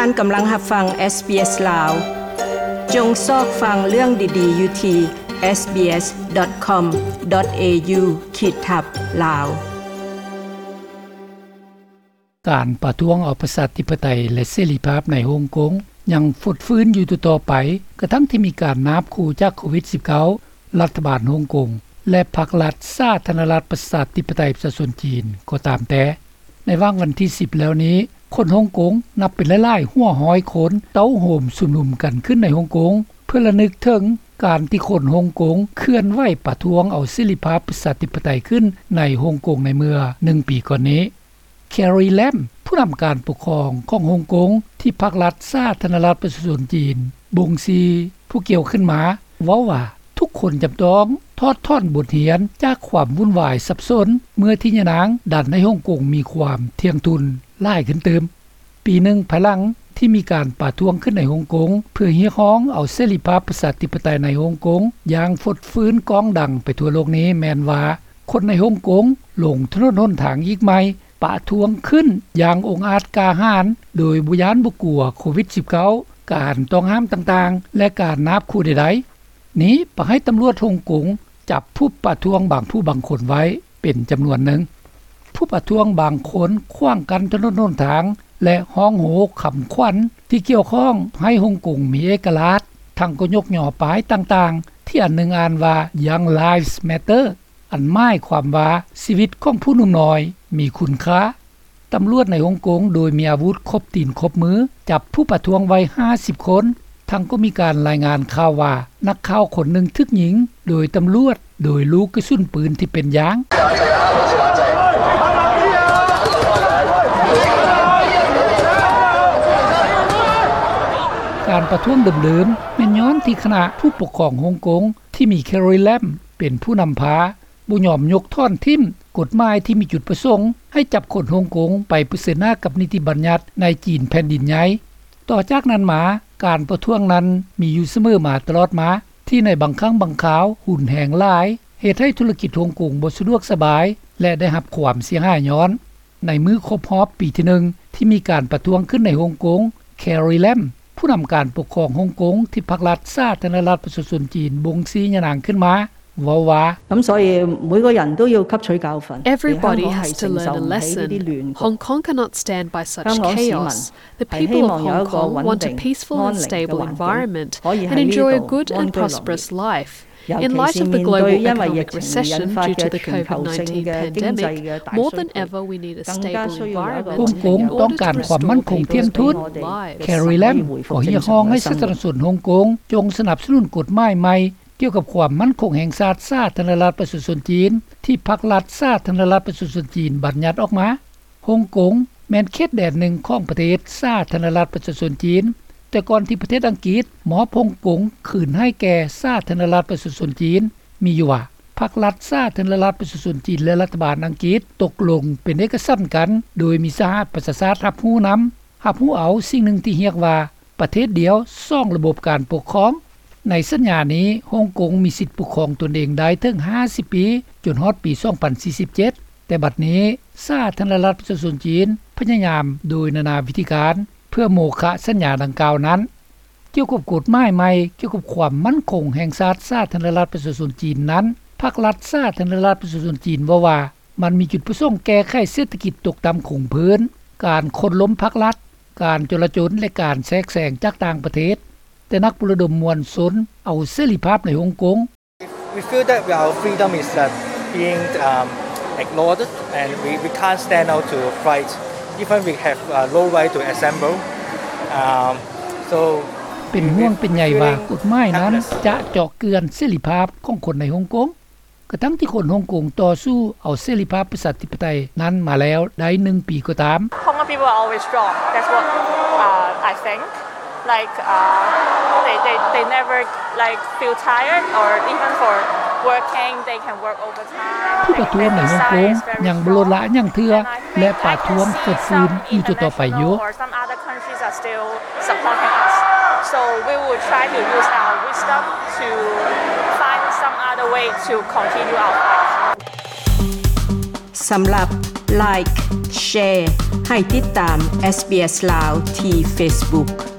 ທ່ານກຳລັງຮັບຟັງ ເອສບີເອສ ລາວ. ຈົ່ງຊອກຟັງເລື່ອງດີໆຢູ່ທີ່ ເອສບີເອສ ດອດ ຄອມ ດອດ ເອຢູ ຂີດທັບ ລາວ. ການປະທ້ວງເອົາປະຊາທິປະໄຕ ແລະ ເສລີພາບໃນຮົງກົງຍັງຟົດຟື້ນຢູ່ຕໍ່ໆໄປ, ກະທັ່ງທີ່ມີການນາບຂູ່ຈາກໂຄວິດສິບເກົ້າ, ລັດຖະບານຮົງກົງ ແລະ ພັກລັດສາທາລະນະລັດປະຊາທິປະໄຕປະຊາຊົນຈີນກໍຕາມແຕ່. ໃນຫວ່າງວັນທີສິບແລ້ວນີ້, ຄົນຮົງກົງນັບເປັນຫຼາຍໆຫົວຮ້ອຍຄົນ ເຕົ້າໂຮມຊຸມນຸມກັນຂຶ້ນໃນຮົງກົງ ເພື່ອລະນຶກເຖິງການທີ່ຄົນຮົງກົງເຄື່ອນໄຫວປະທ້ວງເອົາເສລີພາບປະຊາທິປະໄຕຂຶ້ນໃນຮົງກົງໃນເມື່ອໜຶ່ງປີກ່ອນນີ້. ແຄຣີ ແລມ ຜູ້ນຳການປົກຄອງຂອງຮົງກົງ ທີ່ພັກລັດສາທາລະນະລັດປະຊາຊົນຈີນບົງຊີຜູ້ກ່ຽວຂຶ້ນມາ ເວົ້າວ່າ ທຸກຄົນຈຳຕ້ອງຖອດຖອນບົດຮຽນຈາກຄວາມວຸ່ນວາຍສັບສົນ ເມື່ອທີ່ຍານາງດັນໃຫ້ຮົງກົງມີຄວາມທ່ຽງທຸນຫຼາຍຂຶ້ນຕື່ມ. ປີໜຶ່ງພາຍຫຼັງທີ່ມີການປະທ້ວງຂຶ້ນໃນຮົງກົງ ເພື່ອຮຽກຮ້ອງເອົາເສລີພາບປະຊາທິປະໄຕໃນຮົງກົງຢ່າງຟົດຟື້ນກ້ອງດັງໄປທົ່ວໂລກນີ້ ແມ່ນວ່າ ຄົນໃນຮົງກົງລົງຖະໜົນຫົນທາງອີກໃໝ່ ປະທ້ວງຂຶ້ນຢ່າງອົງອາດກ້າຫານ ໂດຍບໍ່ຢ້ານບໍ່ກົວໂຄວິດສິບເກົ້າ, ການຕ້ອງຫ້າມຕ່າງໆ ແລະ ການນາບຂູ່ໃດໆ. ນີ້ປະໃຫ້ຕຳຫຼວດຮົງກົງຈັບຜູ້ປະທ້ວງບາງຜູ້ບາງຄົນໄວ້ເປັນຈຳນວນໜຶ່ງ. ຜູ້ປະທ້ວງບາງຄົນຂວາງກັ້ນຖະໜົນຫົນທາງ ແລະ ຮ້ອງໂຮຄຳຂວັນທີ່ກ່ຽວຂ້ອງໃຫ້ຮົງກົງມີເອກະລາດ, ທັງກໍຍົກຍໍປ້າຍຕ່າງໆ ທີ່ອັນໜຶ່ງອ່ານວ່າ Young Lives Matter ອັນໝາຍຄວາມວ່າ ຊີວິດຂອງຜູ້ໜຸ່ມນ້ອຍມີຄຸນຄ່າ. ຕຳຫຼວດໃນຮົງກົງໂດຍມີອາວຸດຄົບຕີນຄົບມື ຈັບຜູ້ປະທ້ວງໄວ້ຫ້າສິບຄົນ, ທັງກໍມີການລາຍງານຂ່າວວ່າ ນັກຂ່າວຄົນໜຶ່ງຖືກຍິງໂດຍຕຳຫຼວດໂດຍລູກກະສຸນປືນທີ່ເປັນຢາງ. ການປະທ້ວງເດີມໆ ແມ່ນຍ້ອນທີ່ຄະນະຜູ້ປົກຄອງຮົງກົງ ທີ່ມີແຄຣີ ແລມ ເປັນຜູ້ນຳພາ ບໍ່ຍອມຍົກຖອນຖິ້ມກົດໝາຍທີ່ມີຈຸດປະສົງໃຫ້ຈັບຄົນຮົງກົງໄປປະເຊີນໜ້າກັບນິຕິບັນຍັດໃນຈີນແຜ່ນດິນໃຫຍ່. ຕໍ່ຈາກນັ້ນມາ, ການປະທ້ວງນັ້ນມີຢູ່ສະເໝີມາຕະຫຼອດມາ, ທີ່ໃນບາງຄັ້ງບາງຄາວຮຸນແຮງຫຼາຍ, ເຮັດໃຫ້ທຸລະກິດຮົງກົງບໍ່ສະດວກສະບາຍ ແລະ ໄດ້ຮັບຄວາມເສຍຫາຍຍ້ອນ. ໃນມື້ຄົບຮອບປີທີໜຶ່ງ ທີ່ມີການປະທ້ວງຂຶ້ນໃນຮົງກົງ, ແຄຣີ ແລມ ຜູ້ນຳການປົກຄອງຮົງກົງທີ່ພັກລັດສາທາລະນະລັດປະຊາຊົນຈີນບົງຊີຍານາງຂຶ້ນມາ ເວົ້າວ່າ 噉າ 所以 每個人都要吸取教訓。 Everybody has to learn a lesson. Hong Kong cannot stand by such chaos. The people of Hong Kong want a peaceful and stable environment and enjoy a good and prosperous life. In light of the global economic recession due to the COVID nineteen pandemic, more than ever we need a stable environment. ຮົງກົງຕ້ອງການຄວາມໝັ້ນຄົງທ່ຽງທຸນ. ແຄຣີ ແລມ ກໍຮຽກຮ້ອງໃຫ້ສາທາລະນະຊົນຮົງກົງຈົ່ງສະໜັບສະໜູນກົດໝາຍໃໝ່ ກ່ຽວກັບຄວາມໝັ້ນຄົງແຫ່ງຊາດສາທາລະນະລັດປະຊາຊົນຈີນ ທີ່ພັກລັດສາທາລະນະລັດປະຊາຊົນຈີນບັນຍັດອອກມາ. ຮົງກົງແມ່ນເຂດແດນໜຶ່ງຂອງປະເທດສາທາລະນະລັດປະຊາຊົນຈີນ, ແຕ່ກ່ອນທີ່ປະເທດອັງກິດມອບຮົງກົງຄືນໃຫ້ແກ່ສາທາລະນະລັດປະຊາຊົນຈີນ ມີຢູ່ວ່າ ພັກລັດສາທາລະນະລັດປະຊາຊົນຈີນ ແລະ ລັດຖະບານອັງກິດຕົກລົງເປັນເອກະສັນກັນ ໂດຍມີສະຫະປະຊາຊາດຮັບຮູ້ນຳ, ຮັບຮູ້ເອົາສິ່ງໜຶ່ງທີ່ຮຽກວ່າ ປະເທດດຽວສອງລະບົບການປົກຄອງ. ໃນສັນຍານີ້ ຮົງກົງມີສິດປົກຄອງຕົນເອງໄດ້ເຖິງຫ້າສິບປີ ຈົນຮອດປີສອງພັນສີ່ສິບເຈັດ, ແຕ່ບັດນີ້ສາທາລະນະລັດປະຊາຊົນຈີນພະຍາຍາມໂດຍນານາວິທີການ ເພື່ອໂມຄະສັນຍາດັ່ງກ່າວນັ້ນ. ກ່ຽວກັບກົດໝາຍໃໝ່ກ່ຽວກັບຄວາມໝັ້ນຄົງແຫ່ງຊາດສາທາລະນະລັດປະຊາຊົນຈີນນັ້ນ, ພັກລັດສາທາລະນະລັດປະຊາຊົນຈີນເວົ້າວ່າ ມັນມີຈຸດປະສົງແກ້ໄຂເສດຖະກິດຕົກຕ່ຳຄົງພື້ນ, ການໂຄ່ນລົ້ມພັກລັດ, ການຈົລາຈົນ ແລະ ການແຊກແຊງຈາກຕ່າງປະເທດ, ແຕ່ນັກປຸລະດົມມວນຊົນເອົາເສລີພາບໃນຮົງກົງ. We feel that our freedom is, uh, being, um, ignored, and we, we can't stand out to fight, even we have, uh, no right to assemble. Um, so ເປັນຫ່ວງເປັນໃຍວ່າກົດໝາຍນັ້ນຈະເຈາະເຈື່ອນເສລີພາບຂອງຄົນໃນຮົງກົງ. ກະທັ່ງທີ່ຄົນຮົງກົງຕໍ່ສູ້ເອົາເສລີພາບປະຊາທິປະໄຕນັ້ນມາແລ້ວໄດ້ໜຶ່ງປີກໍຕາມ. Hong Kong people are always strong. That's what, uh, I think. Like, uh, they, they, they never, like, feel tired or even for working, they can work overtime. ຜູ້ປະທ້ວງໃນຮົງກົງຍັງບໍ່ລົດລະຫຍັງເທື່ອ ແລະ ປະທ້ວງຟົດຟື້ນຢູ່ຕໍ່ໆໄປຢູ່. Countries are still supporting us. So we will try to use our wisdom to find some other way to continue our fight. ສຳລັບ Like, Share ໃຫ້ຕິດຕາມ SBS ລາວ ທີ່ Facebook.